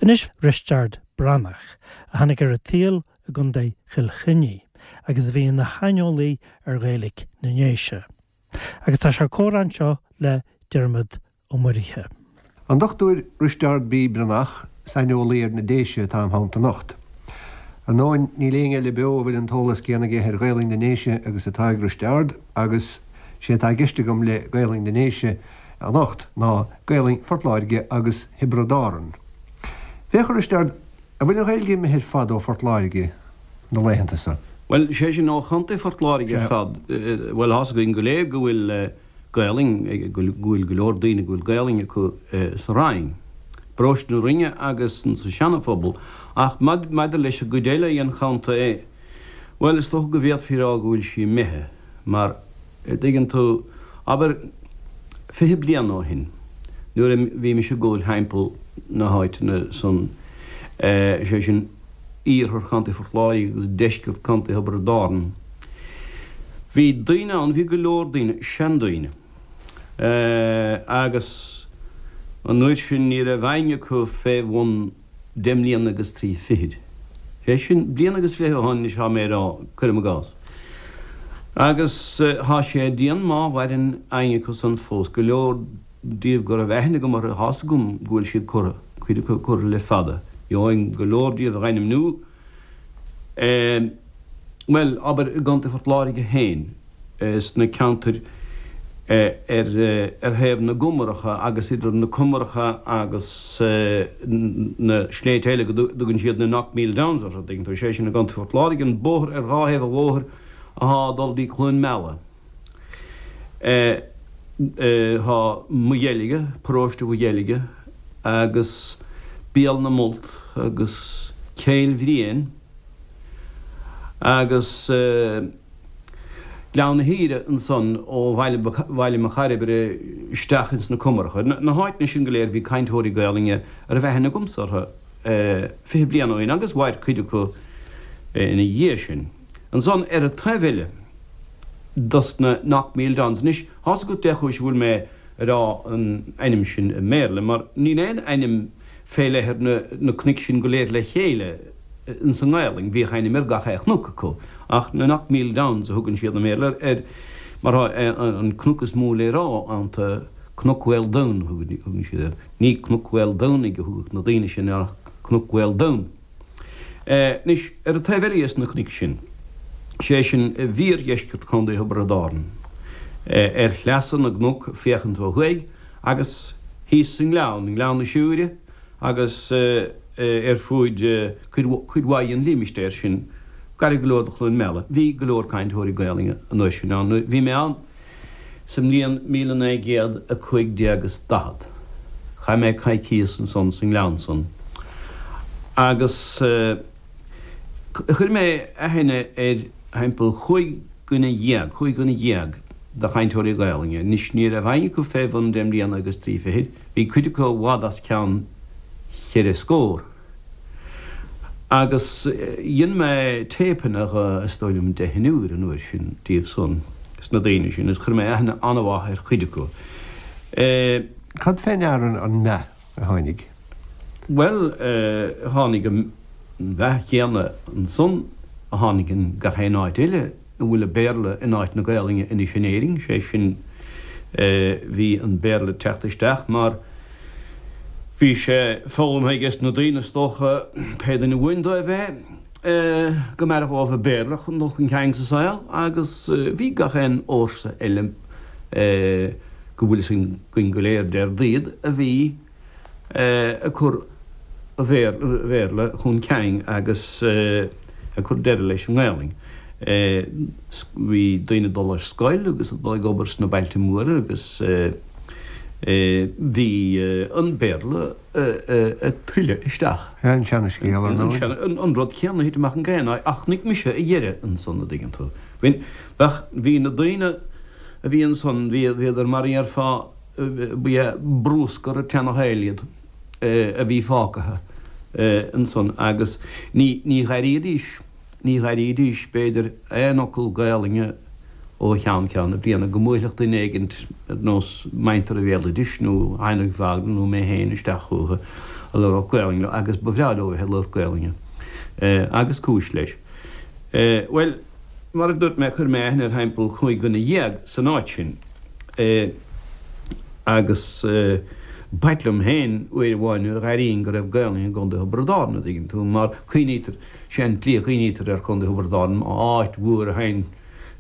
Anois Risteard Breathnach, a tháinig ar an tsaol i gContae Chill Chainnigh agus a bhí ina shaineolaí ar Ghaeilge na nDéise. Agus tá sé ag comhrá anseo le Diarmaid Ó Muirithe. An Dr Risteard B. Breathnach, saineolaí ar na Déise atá im theannta anocht. Ar ndóin, níl éinne eile beo a bhfuil an t-eolas céanna aige ar Ghaelainn na nDéise agus atá ag Risteard agus sé atá i gceist agam le Gaelainn na nDéise anocht ná Gaelainn Phort Láirge agus Thiobraid Árann. Féach a Risteard, an bhfuil an Ghaeilge imithe ar fad ó Phort Láirge na laethanta so? Bhuel, sé sin ó Chontae Phort Láirge ar fad. Bhuel, thá's againn go léir go bhfuil Gaelainn, go bhfuil go leor daoine go bhfuil Gaelainn acu sa Rinn, bparóiste na Rinne agus sa Seana-Phobal, ach maidir leis an gcuid eile dhen chontae, bhuel, is dócha go bhféadfaí a rá go bhfuil sí imithe, mar, a dtuigeann tú, abair, 20 bliain ó shin, nuair a bhí mise ag gabháil thimpeall na háiteanna san, sé sin, iarthar Chontae Phort Láirge agus deisceart Chontae Thiobraid Árann. Bhí daoine ann, bhí go leor daoine, seandaoine, agus an uair sin ní raibh éinne acu fé bhun deich mbliana agus trí fichid. Sé sin, bliain agus fiche ó shoin anois thá mé ag rá, cuirim i gcás. Agus thá sé dian má mhaireann éinne acu san fós, go leor díobh go raibh aithne agam orthu, thá's agam go bhfuil siad curtha, cuid acu curtha le fada. Gheobhainn go leor díobh a dh'ainmniú. Bhuel, abair i gContae Phort Láirge féin, sna ceantair ar ar thaobh na gcumaracha agus idir na cumaracha agus na sléibhte eile go dtugann siad na Knockmeal Downs orthu, tuigeann tú, sé sin i gContae Phort Láirge, an bóthar ar dhá thaobh an bhóthair athá ag dul dtí Cluain Meala. Tá Maigh Dheilge, paróiste Mhaigh Dheilge, agus Béal na Molt agus Cill Bhriain agus Gleann na hAoire ansan ó Bhaile Mhic Cairbre isteach ins na Cumaracha. Na háiteanna sin go léir bhí cainteoirí Gaolainne a raibh aithne agamsa orthu 20 bliain ó shin agus mhair cuid acu ina dhiaidh sin. Ansan ar an taobh eile dos na Knockmeal Downs. Anois, thá's agat dé chúis a bhfuil mé a rá an ainm sin i mBéarla, mar níl aon ainm fé leith ar na cnoic sin go léir le chéile ins an nGaelainn. Bhíodh ainm ar gach aon chnoc acu, ach na Knockmeal Downs a thugann siad i mBéarla air, mar thá an cnoc is mó le rá iontu, Cnoc Mhaoldomhain a thugann siad air. Ní Cnoc Mhaoldomhnaigh a thugadh na daoine sin air ach Cnoc Mhaoldomhain. Anois, ar an taobh eile dhes na cnoic sin, sé sin i bhfíordheisceart Chontae Thiobraid Árann, ar shleasa na gcnoc féachaint ó thuaidh, agus thíos sa ngleann, i nGleann na Siúire agus ar fuaid cuid mhaith den límistéar sin, gairid go leor do Chluain Meala, bhí go leor cainteoirí Gaelainne an uair sin ann. Bhí mé ann. Sa mbliain 1945 is 40, chaith mé coicíos ansan sa ngleann san agus chuir mé aithne ar thimpeall chúig dhuine dhéag, chúig dhuine dhéag de chainteoirí Gaelainne. Anois ní raibh éinne acu fé bhun deich mbliana agus trí fichid, bhí cuid acu i bhfad os cionn cheithre scór. Agus dhein mé téipeanna dhe, is dóigh liom deichniúr an uair sin díobh san, sna daoine sin, agus chuir mé aithne an-mhaith ar chuid acu. Cad fé ndeara an meath a tháinig? Bhuel, tháinig an mheath chéanna ansan a tháinig in gach aon áit eile a bhfuil an Béarla in áit na Gaelainne anois in Éirinn, sé sin, bhí an Béarla ag teacht isteach mar Bhí sé foghlamtha aige na daoine is dócha, pé duine uainn dóibh é, go mb'fhearr dhóibh an Béarla chun dul chun cinn sa saol agus bhí gach aon fhórsa eile go bhfuil fhios againn go léir céard iad a bhí ag cur an Bhéarla chun cinn agus ag cur deireadh leis an nGaelainn. Bhí daoine ag dul ar scoil agus ag dul ag obair sna bailte móra agus. Bhí an Béarla ag tuilleadh isteach. An seana-scéal, ar ndóigh. An rud céanna a thit amach in gach aon áit, ach chonaic mise a dheireadh ansan, a dtuigeann tú. Bheadh, bhí na daoine a bhí ansan, bhíodar mar a dhéarfá, ba é brúscar an tseana-shaoil iad a bhí fágtha ansan agus ní, ní dh'airídís, Ní dh'airídís, b'fhéidir, aon fhocal Gaelainne ó cheann ceann na bliana, go mbuailfeadh duine éigint ar nós muintir an bhéaloidis nó Heinrich Wagner nó mé féin isteach chucu. A labhródh Gaolainn leo agus ba bhreá leo a bheith ag labhairt Gaolainne. Agus cúis leis. Bhuel, mar a dúirt mé, chuir mé aithne ar thimpeall 15 dhuine san áit sin. Agus b'ait liom féin uair amháin nuair a dh'airínn go raibh Gaolainn i gContae Thiobraid Árann, a' dtuigeann tú, mar cuimhnítear, sé an tslí a chuimhnítear ar Chontae Thiobraid Árann, áit mhór a théann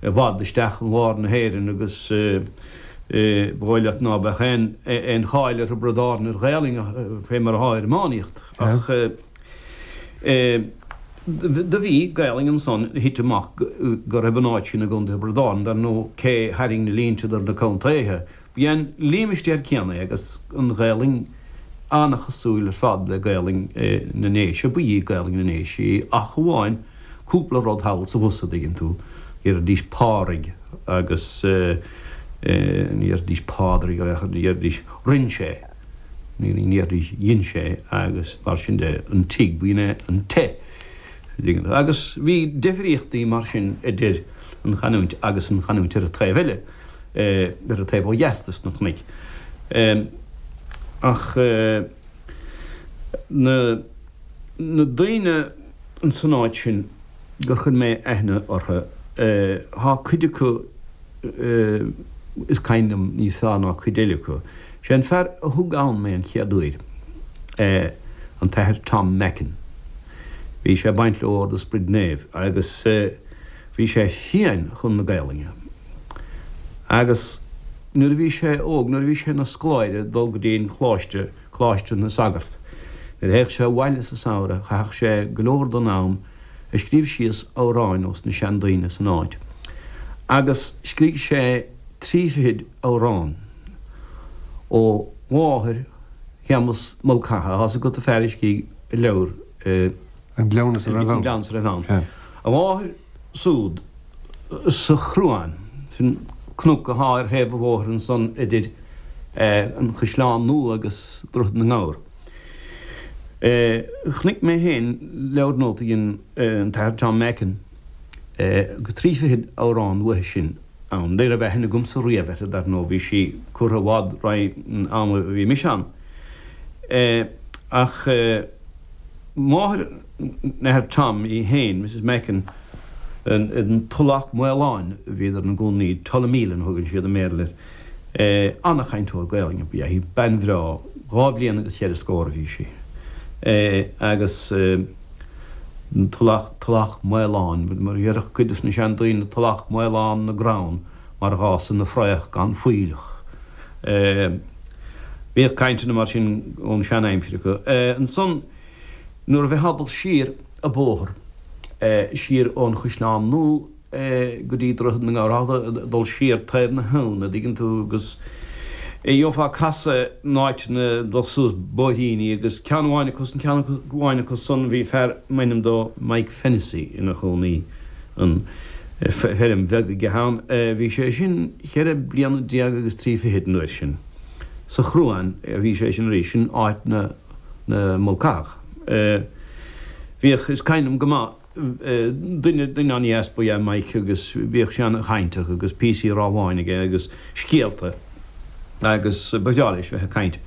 i bhfad isteach in lár na hÉireann agus ba dhóigh leat ná beadh aon cháil ar Thiobraid Árann ar Ghaolainn fé mar athá ar iománaíocht. Ach do bhí Gaolainn ansan, thit amach go raibh an áit sin i gContae Thiobraid Árann, dar ndóigh cé tharraing na línte idir na contaetha, B'é an límistéar céanna é agus an Ghaolainn an-chosúil ar fad le Gaolainn na nDéise, ba í Gaolainn na nDéise í ach amháin cúpla rud thall is abhus, a' dtuigeann tú, deiridís Pádraig agus ní dheiridís Pádraig ar aon chor, dheiridís rinn sé, ní dheiridís dhein sé agus mar sin de, an tigh, b'in é an te, a dtuigeann tú. Agus bhí deifríochtaí mar sin idir an chanúint agus an chanúint ar an taobh eile. ar an taobh ó dheas de sna cnoic. Ach na daoine ins an áit sin gur chuir mé aithne orthu, thá cuid acu is cuimhin liom níos fearr ná cuid eile acu. Sé an fear a thug ann mé an chéad uair, an tAthair Tom Mackin. Bhí sé ag baint le Ord an Sprid Naoimh agus bhí sé fiáin chun na Gaelainne. Agus nuair a bhí sé óg, nuair a bhí sé ina scoláire ag dul go dtí an coláiste, Coláiste na Sagart, nuair a théadh sé abhaile sa samhradh, chaitheadh sé go leor den am ag scríobh síos amhráin ós na seandaoine san áit. Agus scrígh sé trí fichid amhrán ó mháthair Shéamus Mulcahy, thá's agat an fear a scrígh an leabhar, An Cleamhnas a raibh ann. An Cleamhnas a raibh ann. A mháthair súd sa Chruán, sin cnoc athá ar thaobh an bhóthair ansan idir an Chaisleán Nua agus Droichead na nGabhar. Chonaic mé féin leabhar nótaí an tAthair Tom Mackin agus trí fichid amhrán uaithi sin ann. Ní raibh aithne agamsa riamh uirthi, dar ndóigh, bhí sí curtha i bhfad roimh an am a bhí mise ann. Ach. Máthair an Athar Tom í féin, Mrs Mackin, in Tulach Mhaoláin a bhíodar ina gcónaí, Tullameelin a thugann siad i mBéarla air. An-chainteoir Gaelainne ba ea í, bean bhreá, dhá bhliain agus cheithre scór a bhí sí. Agus Tulach, Tulach Mhaoláin, mar a déarfadh cuid de na seandaoine, Tulach Mhaolán na gcrann mar a dh'fhásann na fraoch gan fuílleach. Bhíodh cainteanna mar sin ón sean-aimsir acu. Ansan nuair a bheifeá ag dul siar a' bóthar, siar ón Chaisleán Nua go dtí Droichead na nGabhar, ag dul siar taobh na habhann, a' dtuigeann tú, agus gheofá casadh in áiteanna ag dul suas bóithríní agus ceann amháin acu san, ceann amháin acu san bhí fear m'ainm dó Mike Fennessy ina chónaí ann, feirm bheag aige ann. Bhí sé sin cheithre bliana déag agus trí fichid an uair sin. Sa Chruán a bhí sé sin arís, sin áit na Mulcathach. Bhíodh, is cuimhin liom go maith, duine, duine an-dheas ba ea Mike agus bhíodh sé an-chainteach agus píosaí rámhainn aige agus scéalta agus ba bhreá leis bheith ag caint.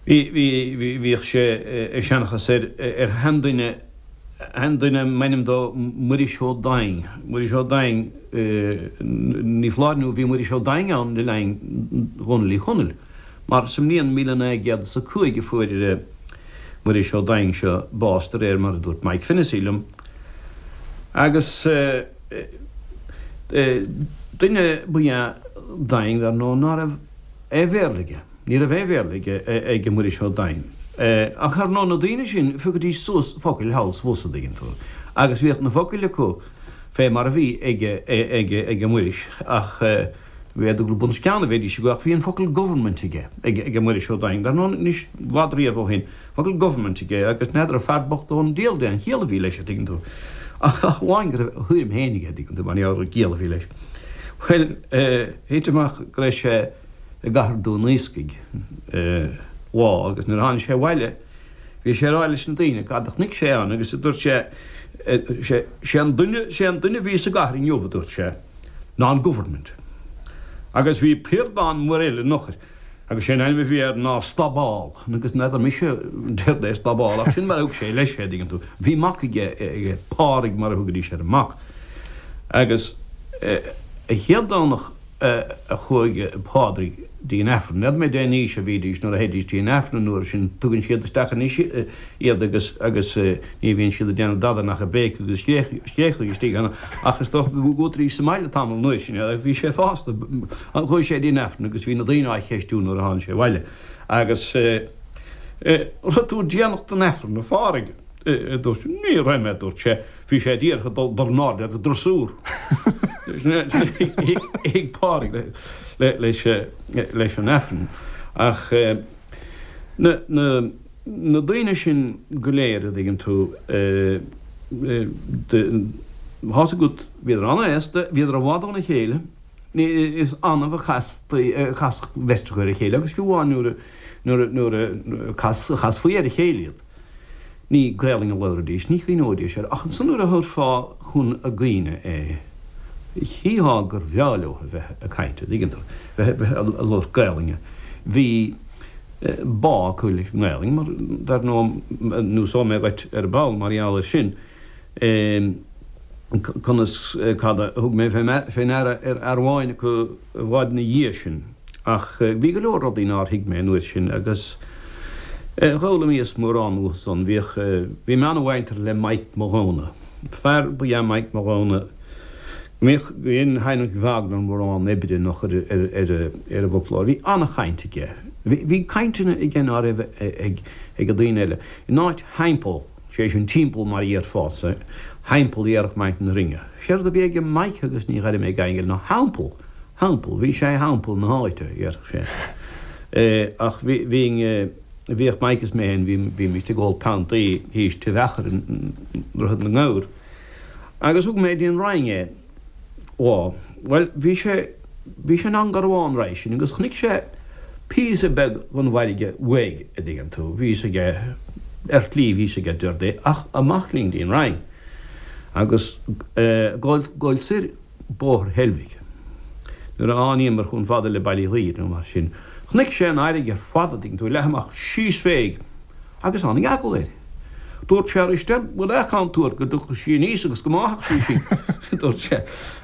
Bhí, bhí, bhíodh sé ag seanchas ar, ar sheanduine, Seanduine m'ainm dó Muiris Ó Doinn. Muiris Ó Doinn, ní foláir nó bhí Muiris Ó Doinn ann le linn Dhónaill Uí Chonaill, mar sa mbliain 1905 a fuair Muiris Ó Doinn seo bás de réir mar a dúirt Mike Fennessy liom. Agus duine ba ea Doinn, dar ndóigh, ná raibh aon Bhéarla aige. Ní raibh aon Bhéarla aige, ag Muiris Ó Doinn. Ach ar ndóigh na daoine sin, phiocaidís suas focail thall 's abhus, a' dtuigeann tú. Agus bhíodh na focail acu fé mar a bhí ag, ag, ag Muiris ach b'fhéidir gur bun os cionn a bheidís acu ach bhí an focal government aige, ag, ag Muiris Ó Doinn. Dar ndóigh anois, i bhfad riamh ó shin, focal government aige agus n'fheadar an fear bocht ón diabhal dé an chiall a bhí leis, a' dtuigeann tú. Ach amháin go raibh a thuairim féin aige, a' dtuigeann tú, mar gheall ar an gciall a bhí leis. Bhuel, thit amach go raibh sé, i gcathair Dún Iascaigh lá agus nuair a tháinig sé abhaile bhí sé ag rá leis na daoine cad a chonaic sé ann agus dúirt sé sé an duine sé an duine a bhí sa gcathair inniu a dúirt sé ná an government agus bhí piardán maor eile in eochair. Agus sé an ainm a bhí air ná Staball. Agus n'fheadar mise céard é Staball ach sin mar a thug sé leis é, dtuigeann tú. Bhí mac aige, aige, Pádraig mar a thugaidís ar an mac. Agus an chéad Domhnach a chuaigh Pádraig dtí an Aifreann, n'fheadar mé dén aois a bhídís nuair a théidís dtí an Aifreann an uair sin, tugann siad isteach anois iad agus, agus ní bhíonn siad ag déanamh dada nach ag béiceadh agus scréachadh istigh ann ach is dócha go gcuataidís sa mbaile tamall an uair sin agus bhí sé fásta. Chuaigh sé dtí an Aifreann agus bhí na daoine á cheistiú nuair a tháinig sé abhaile agus raibh tú déanach don Aifreann, a Phádraig? a dúirt sé. Ní raibh mé, a dúirt sé. Bhí sé díreach ag dul in airde ar an drosúr. Thuig Pádraig leis an Aifreann. Ach na daoine sin go léir, a dtuigeann tú, tá's agat, bhíodar an-aosta, bhíodar i bhfad óna chéile, is annamh a chasfadh beirt acu ar a chéile agus fiú amháin nuair a chasfaí ar a chéile iad. Ní Gaelainn a labhraidís, ní chuimhneoidís air, ach ansan nuair a thabharfá chun a gcuimhne é, chífeá gur bhreá leo a bheith ag caint, a' dtuigeann tú, bheith, bheith a' labhairt Gaelainne. Bhí bá acu leis an nGaelainn, mar dar ndóigh, neosóidh mé dhuit ar ball mar gheall air sin, conas, cad a thug mé fé ndeara ar fhear amháin acu i bhfad ina dhiaidh sin. Ach bhí go leor rudaí nár thuig mé an uair sin agus dh'fhoghlaimíos mórán uathu san. Bhíodh, bhí mé ana-mhuinteartha le Mike Mathghamhna. Fear ba ea Mike Mathghamhna go mbíodh, go dhein Heinrich Wagner mórán oibre nach ar, ar, ar, ar an bhfoclóir. Bhí ana-chaint aige. Bhí, bhí cainteanna aige ná raibh ag, ag an daoine eile. In áit theampall, sé sin timpeall mar a dhéarfása, theampall a dhéarfadh Mike na Rinne. Séard a bhí aige Mike agus ní dheirim ag éinne eile ná theampall. Theampall, bhí sé theampall na háite, a déarfadh sé. Ach bhí, bhínn, bhíodh Mike is mé féin, bhí, bhímist ag ól piontaí thíos Tigh Mheachair i nDroichead na nGabhar. Agus thug mé dtí an Rinn é lá. Bhuel, bhí sé, bhí sé in Angarmhán roimhe sin agus chonaic sé píosa beag den bhfarraige uaidh, a dtuigeann tú. Bhí fhios aige, ar shlí bhí fhios aige céard é, ach amach linn dtí an Rinn. Agus gabháil, gabháil soir Bóthar Heilbhic. Nuair a thánaíomar chomh fada le Baile Uí Ghuidhir nó mar sin, chonaic sé an fharraige ar fad, a dtuigeann tú, leath amach síos féig, agus tháinig eagla air. Dúirt sé, Risteard, bhfuil aon chontúirt go dtiocfadh sí aníos agus go mbáfadh sí sinn? dúirt sé.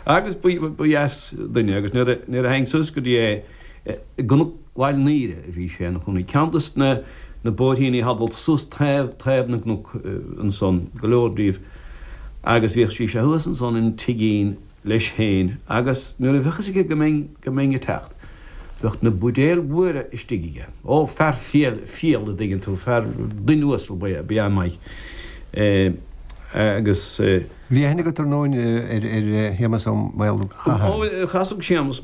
Agus ba dheas duine, agus nuair a, nuair a théinn suas go dtí é, i gCnoc Bhaile an Aoire a bhí sé ina chónaí, ceann dos na, na bóithríní atá ag dul suas taobh, taobh na gcnoc ansan, go leor díobh. Agus bhíodh sí sé thuas ansan in tigín leis féin agus nuair a bheadh fhios aige go mbeinn, go mbeinn ag teacht, bheadh na buidéil mhóra istigh aige. Ó, fear fial, fial a dtuigeann tú, fear, duine uasal ba ea, ba ea Mike. Agus. Bhí aithne agat ar ndóin ar, ar Shéamus Ó Maolchatha. Ó, chasadh Séamus,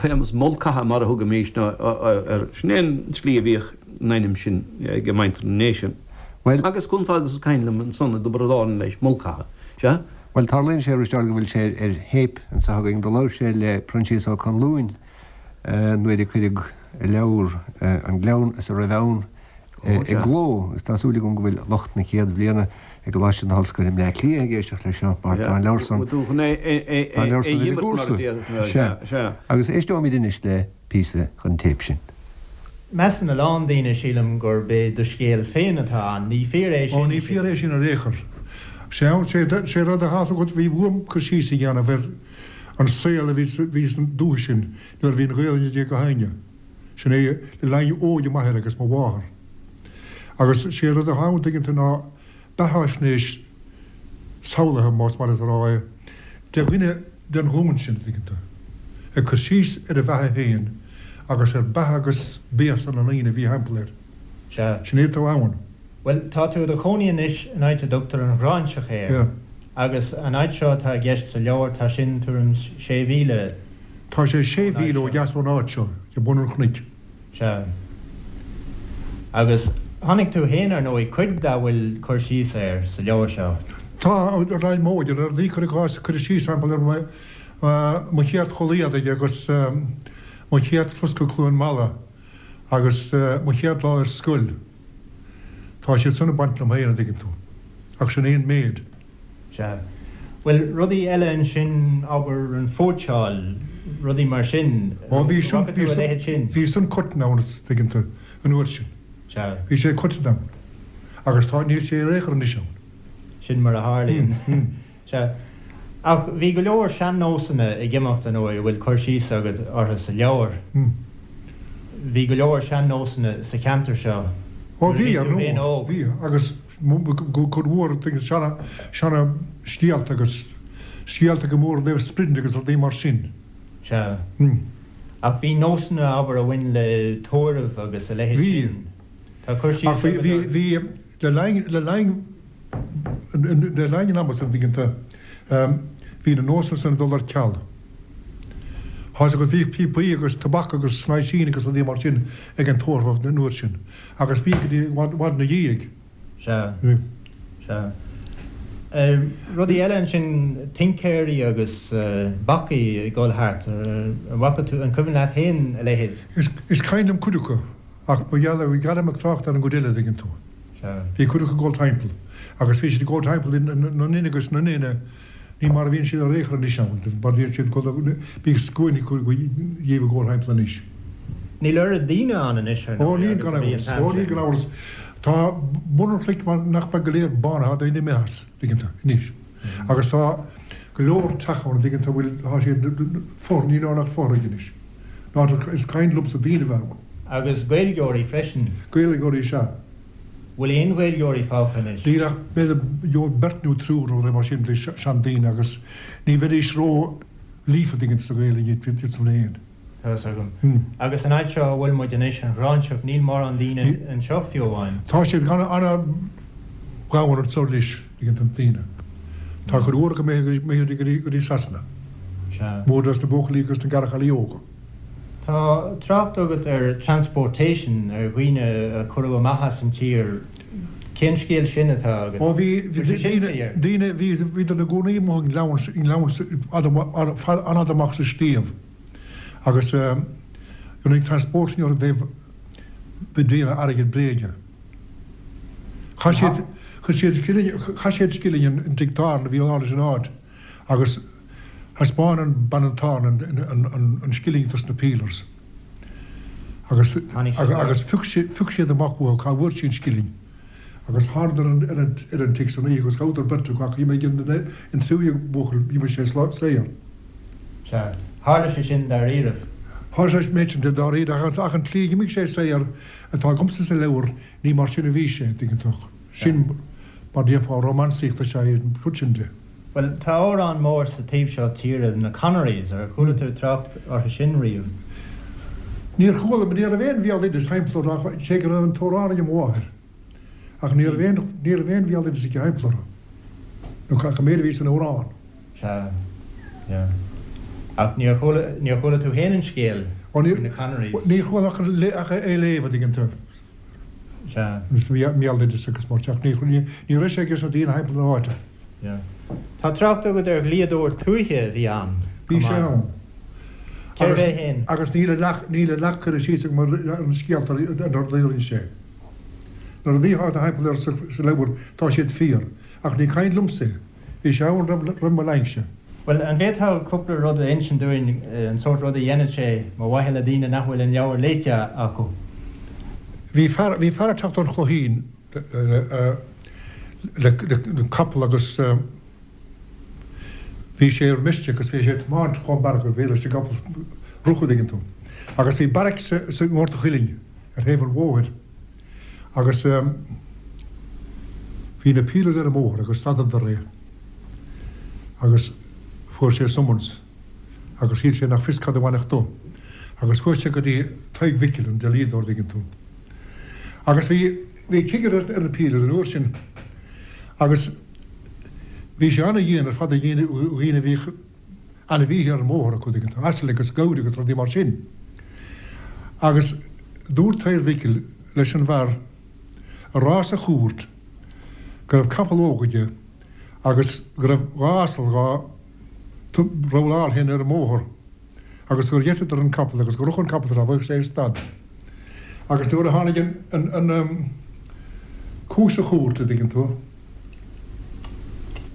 Séamus Mulcahy mar a thugaimís air, sin é an tslí a bhíodh an ainm sin ag muintir na nDéise. Bhuel. Agus chomh fada agus is cuimhin liom ansan i dTiobraid Árann leis, Mulcahy. Sea? Bhuel, tarlaíonn sé, a Risteaird, go bhfuil sé ar théip anseo againn. Do labhair sé le Proinsias Ó Conluain nuair a cuireadh a leabhar An Gleann is a Raibh Ann i gcló agus tá súil agam go bhfuil lucht na chéad bhliana i gColáiste na hOllscoile i mBleá Cliath ag éisteacht leis seo mar tá an leabhar san, tá an leabhar san ar an gcúrsa. Sea. Agus éisteoimid anois le píosa den téip sin. Measann a lán daoine, sílim, gurb é do scéal féin atá ann. Ní fíor é sin. Ó, ní fíor é sin ar aon chor. Sé, sé rud atá agat, bhí uaim cur síos a dhéanamh ar an saol a bhí, bhí san dúiche sin nuair a bhí an Ghaelainn ag gach éinne. Sin é le linn óige m'athair agus mo mháthar. Agus sé rud atá ann, tuigeann tú, ná beathaisnéis samhlaithe, más maith leat a rá é, de dhuine den ghlúin sin, tuigeann tú, ag cur síos ar a bheatha féin agus ar beatha agus béasa na ndaoine a bhí thimpeall air. Sea. Sin é atá ann. Bhuel, tá tú i do chónaí anois in áit a dtugtar an Ghráinseach air. Yeah. Agus an áit seo atá i gceist sa leabhar, tá sin tuairim 's sé mhíle Tá sé sé ón áit mhíle ó seo. dheas ón áit seo, ag bun an chnoic. Sea. Agus chonaic tú féin, ar ndóigh, cuid dá bhfuil cur síos air sa leabhar seo. Tá, ar aghaidh móide, ar rudaí, cuir i gcás, cuireadh síos thimpeall ar mo chéad chulaith éadaigh agus mo chéad turas go Cluain Meala agus mo chéad lá ar scoil. Tá siad san ag baint liom féin, an dtuigeann tú. Ach sin é an méid. Sea. Bhuel, rudaí eile ansin, abair, an phóitseáil. rudaí mar sin. Ó bhí sin, bhí a leithéid sin? Bhí san coiteann ann, tuigeann tú, an uair sin. Sea. Bhí sé coiteann ann. Agus tá, níl sé ar aon chor anois ann. Sin mar a tharlaíonn. Sea. Ach bhí go leor sean-nósanna ag imeacht, ar ndóigh, a bhfuil cur síos agat orthu sa leabhar. Bhí go leor sean-nósanna sa cheantar seo Ó bhí, ar ndóigh, bhí. Agus cuid mhór seana, seana scéalta agus scéalta go mór Naomh Sprid agus rudaí mar sin. Sea. Ach bhí nósanna, abair, a bhain le tórramh agus a leithéid sin. Bhí. Tá cur síos agat orthu. Ach bhí, bhí, le linn, le linn, Le linn an ama san, tuigeann tú, bhí na nósanna san ag dul ar ceal. Tá 'fhios agat, bhíodh píopaí agus tobac agus snaoisín agus rudaí mar sin ag an tórramh an uair sin agus bhí go dtí i bhfad ina dhiaidh. Sea. Sea. Rudaí eile ansin, tincéirí agus bacaigh ag dul thart, an bhfaca tú, an cuimhin leat féin a leithéid? Is cuimhin liom cuid acu ach ba gheall ar, gheall ag trácht ar an gcuid eile, tuigeann tú. Bhí cuid acu ag dul timpeall agus bhí siad ag dul timpeall na nduine agus na nduine, ní mar a bhíonn siad ar aon chor anois ann, mar bhíonn siad ag dul, bíodh scuainí acu dhíobh ag dul timpeall anois. Níl oiread daoine ann anois ar ndóigh agus a bhí an t-am sin. Ó níl gan amhras. Tá bun an chnoic mar nach beag go léir bánaithe, tá daoine imithe as, tuigeann tú, anois. Agus tá go leor teach ann, tuigeann tú, a bhfuil, tá siad fothraigh, níl ann ach fothraigh anois. Ná is cuimhin liomsa daoine a bheith ann. Agus Gaeilgeoirí freisin. Gaeilgeoirí sea. Bhfuil aon Ghaeilgeoirí fágtha anois? Níl ach b'fhéidir beirt nó triúr nó rud mar sin de seandaoine agus ní bheidís ró líofa tuigeann tú sa Ghaeilge iad san féin. Tá fhios agam. Agus an áit seo a bhfuil muid anois, an Ghráinseach, níl mórán daoine anseo fiú amháin. Tá siad gan an-ghamhain anseo anois, tuigeann tú, daoine. Tá cuid mhór acu imithe go dtí Sasana. Sea. Mór dos na buachaillí agus na garchaillí óga. Tá trácht agat ar transportation, ar dhaoine a cuireadh amach as an tír. Cén scéal sin atá agat? Ó bhí daoine, daoine, bhí, bhíodar ina gcónaí amuigh i ngleann, i ngleann fada, an-fhada amach sa sliabh agus rinneadh transportation orthu i dtaobh ag déanamh airgead bréige. Chaith siad, chuir siad scilling, chaith siad scilling in tigh tábhairne a bhí ann leis an áit. Agus thaispeáin an bean an tábhairne an scilling dos na peelers. Agus agus phioc phioc siad amach uathu cá bhfuair sí an scilling. Agus thánadar ar an ar an tigh san oíche agus ghabhadar beirt acu ach d'imigh an an tríú buachaill d'imigh sé saor. Sea. Tharla sé sin dáiríribh. Tharla sé an méid sin dáiríre ach ach an tslí a d'imigh sé saor atá agamsa sa leabhar ní mar sin a bhí sé, tuigeann tú. Sin mar déarfá rómánsaíocht is ea é an rud sin de. Bhuel, tá amhrán mór sa taobh seo tíre, na Connerys, ar chuala tú trácht orthu sin riamh? Níor chuala, ní raibh aon bhéaloideas thimpeall orthu ach cé go raibh an t-amhrán ag mo mháthair. Ach ní raibh aon, ní raibh aon bhéaloideas aici thimpeall orthu. Nó ach an méid a bhí san amhrán. Sea, yeah. Ach níor chuala, níor chuala tú féin an scéal faoi na Connerys? Níor chuala ach é a léamh, a dtuigeann tú. Sea. Béaloideas agus mar teach. Ní raibh sé aige sna daoine thimpeall na háite. Yeah. Tá trácht agat ar dhlíodóir tuaithe a bhí ann, Bhí sé ann. Cérbh é féin? Agus níl a leath, níl a leath curtha síos agam ar na scéalta ar na rudaí a rinne sé. Na rudaí atá thimpeall air sa leabhar, tá siad fíor. Ach ní cuimhin liomsa é. Bhí sé ann roimh mo linnse. Bhuel, an bhféadfá cúpla rud a insint dúinn, an sórt rud a dhéanadh sé, mar mhaithe le daoine nach bhfuil an leabhar léite acu? Bhí fear, bhí fear ag teacht ón Chloichín le, le capall agus bhí sé ar mistake agus bhí sé ag tiomáint chomh mear go bhféadfadh leis an gcapall rith, an dtuigeann tú. Agus bhí beairic sa, sa nGort a' Chuilinn ar thaobh an bhóthair agus bhí na peelers ar an mbóthar agus stadadar é agus fuair sé summons agus shíl sé nach fios cad a bhainfeadh dó agus chuaigh sé go dtí Tadhg Mhicil, an dlíodóir, an dtuigeann tú. Agus bhí, bhí cigire ar na peelers an uair sin agus bhí sé ana-dhian ar fad ar dhaoine, dhaoine a bhíodh ainmhíthe ar an mbóthar acu, an dtuigeann tú, asail agus gabhair agus rudaí mar sin. Agus dúirt Tadhg Mhicil leis an bhfear a rá sa chúirt go raibh capall óg aige agus go raibh dha asal dhá rabhláil féin ar an mbóthar agus gur gheiteadar an capall agus gur rith an capall tráth bheadh sé stad. Agus nuair a tháinig an, an, an cúis sa chúirt, a dtuigeann tú,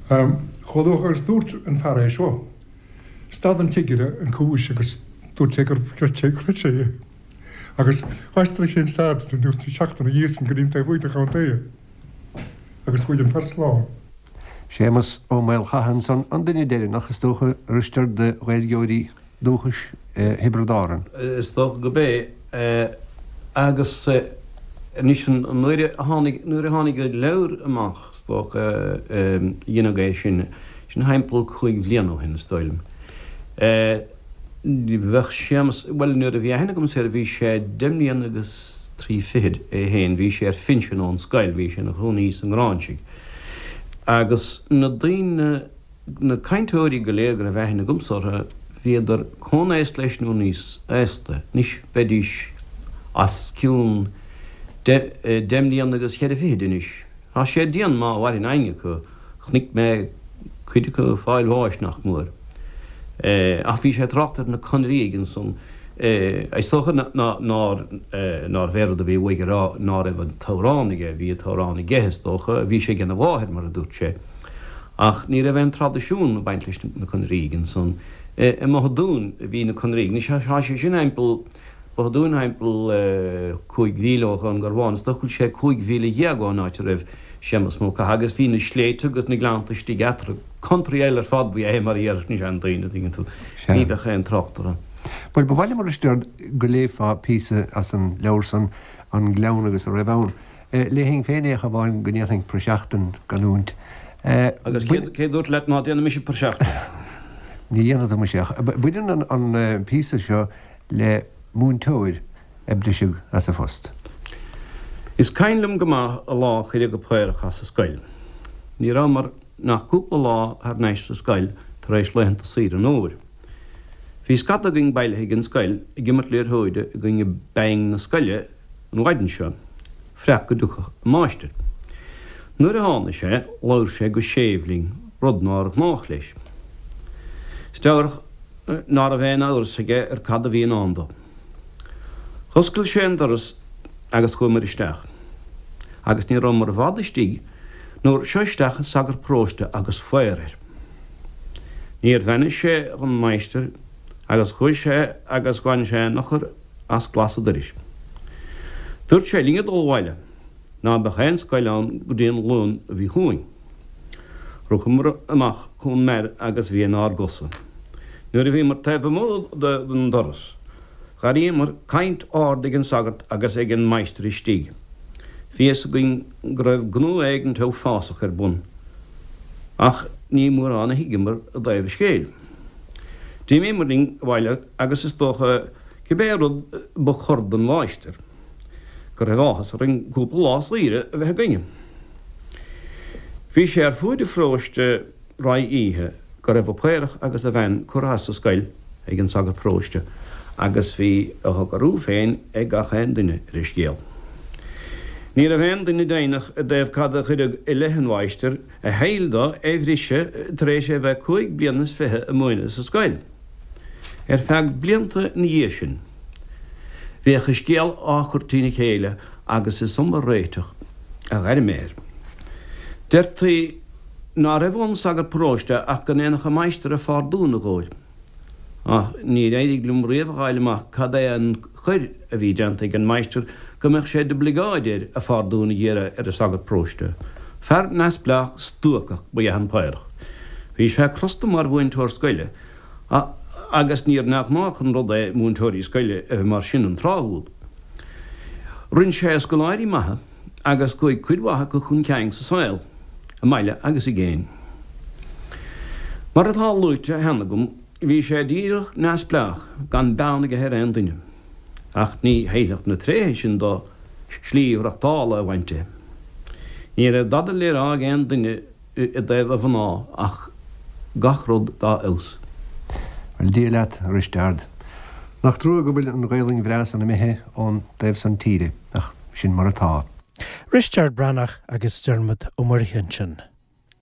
Chomh luath agus dúirt an fear é seo. Stad an cigire an chúis agus dúirt sé gur chreid sé, chreid sé é. Agus d'aistrigh sé an sagart an tseachtain ina dhiaidh san go dtí an taobh thuaidh den chontae agus chuaigh an fear slán. Séamus Ó Maolchatha ansan, an duine deireanach, is dócha, a Risteaird de Ghaeilgeoirí dúchais Thiobraid Árann. Is dócha gurb é. Agus anois nuair a tháinig, nuair a tháinig an leabhar amach, is dócha, dhéanadh é sin, sin thimpeall chúig bhliana ó shin, is dóigh liom. Bheadh Séamus, bhuel nuair a bhí aithne agamsa air bhí sé deich mbliana agus trí fichid é féin, bhí sé ar phinsean ón scoil, bhí sé ina chónaí sa nGráinsigh. Agus na daoine, na cainteoirí go léir go raibh aithne agamsa orthu, bhíodar comhaosta leis nó níos aosta. Anois bheidís os cionn deich mbliana agus cheithre fichid anois. Tá sé dian má mhaireann éinne acu. Chonaic mé cuid acu ag fáil bháis nach mór. Ach bhí sé ag trácht ar na Conrígh ansan. Is dócha nárbh é rud a bhí uaidh a rá ná raibh an t-amhrán aige, bhí an t-amhrán aige is dócha, bhí sé ag a mháthair mar a dúirt sé. Ach ní raibh aon traidisiún ag baint leis na Conrígh ansan. I mBoth a' Dúin a bhí na Conrígh. Anois tá sé sin thimpeall, Both a' Dúin thimpeall chúig mhíle ó Dhún Garbhán. Is dócha go bhfuil sé 15 mhíle ón áit a raibh Séamus Mulcahy agus bhí na sléibhte agus na gleannta istigh eatarthu. Country eile ar fad ba ea é mar a déarfadh na seandaoine, an dtuigeann tú. Ní bheadh aon trácht orthu. Bhuel, ba mhaith liom, a Risteaird, go léifeá píosa as an leabhar san, An Gleann agus a Raibh Ann. Léifinn féin é ach amháin go ndéanfainn praiseach den gcanúint. Agus cé dúirt leat ná déanfaidh mise praiseach de? Ní dhéanfaidh tú muise ach baineann an píosa seo le múinteoir a briseadh as a phost. Is cuimhin liom go maith an lá a cuireadh an Paorach as an scoil. Ní rabhamar nach cúpla lá thar n-ais sa scoil tar éis laethanta saoire an fhómhair. Bhí scata againn bailithe ag an scoil ag imirt liathróide i gcoinne Bang na scoile an mhaidin seo, freach go dtiocfadh an máistir. Nuair a tháinig sé, labhair sé go séimh linn, rud nár ghnách leis. Is dealrach ná raibh aon amhras aige ar cad a bhí i ndán dó. Dh'oscail sé an doras agus chuamair isteach. Agus ní rabhamar i bhfad istigh nuair seo isteach an sagart paróiste agus faobhar air. Níor bheannaigh sé dhon máistir agus chuaigh sé agus bhain sé an eochair as glas an doiris. Dúirt sé linn a dul abhaile, ná beadh aon scoil ann go dtí an Luan a bhí chugainn. Rughamar amach chun mear agus bhí inár gcosa. Nuair a bhíomar taobh amuigh den doras, dh'airíomar caint ard ag an sagart agus ag an máistir istigh. Bhí fhios againn go raibh gnó éigint uafásach ar bun, ach ní mórán a thuigeamar i dtaobh an scéil. D'imíomar linn abhaile agus is dócha, cibé rud ba chor don mháistir, go raibh áthas orainn cúpla lá saoire a bheith againne. Bhí sé ar fuaid an pharóiste roimh oíche go raibh an Paorach agus a bhean curtha as an scoil ag an sagart paróiste agus bhí a shocrú féin ag gach aon duine ar an scéal. Ní raibh aon duine deimhneach i dtaobh cad a cuireadh i leith an mháistir a thoil dó é bhriseadh tar éis é bheith cúig bliana is fiche ag múineadh sa scoil. Ar feadh blianta ina dhiaidh sin, bhíodh an scéal á chur trína chéile agus is iomaí réiteach a ghair mé air. Deirtí ná raibh ón sagart paróiste ach go ndéanfadh an máistir a phardún a dh'fháil. Ach níor éirigh liom riamh a dh'fháil amach cad é an choir a bhí déanta ag an máistir go mbeadh sé d'oibligeáid air a phardún a dh'iarraidh ar an sagart paróiste. Fear neamhspleách stuacach ba ea an Paorach. Bhí sé crosta mar mhúinteoir scoile agus níor neamhghnách an rud é múinteoirí scoile a bheith mar sin an tráth úd. Rinn sé scoláirí maithe agus chuaigh cuid mhaith acu chun cinn sa saol, i mbaile agus i gcéin. Mar atá luaite cheana agam, bhí sé díreach neamhspleách, gan beann aige ar aon duine. Ach ní fheilfeadh na tréithe sin dó slí mhaireachtála a bhaint de. Ní raibh dada le rá ag aon duine i dtaobh a mhná ach gach rud dá fheabhas. Bhuel, Dia leat, a Risteard. Nach trua go bhfuil an Ghaelainn bhreá san imithe ón dtaobh san tíre, ach sin mar atá. Risteard Breathnach agus Diarmuid Ó Muirthile ansin.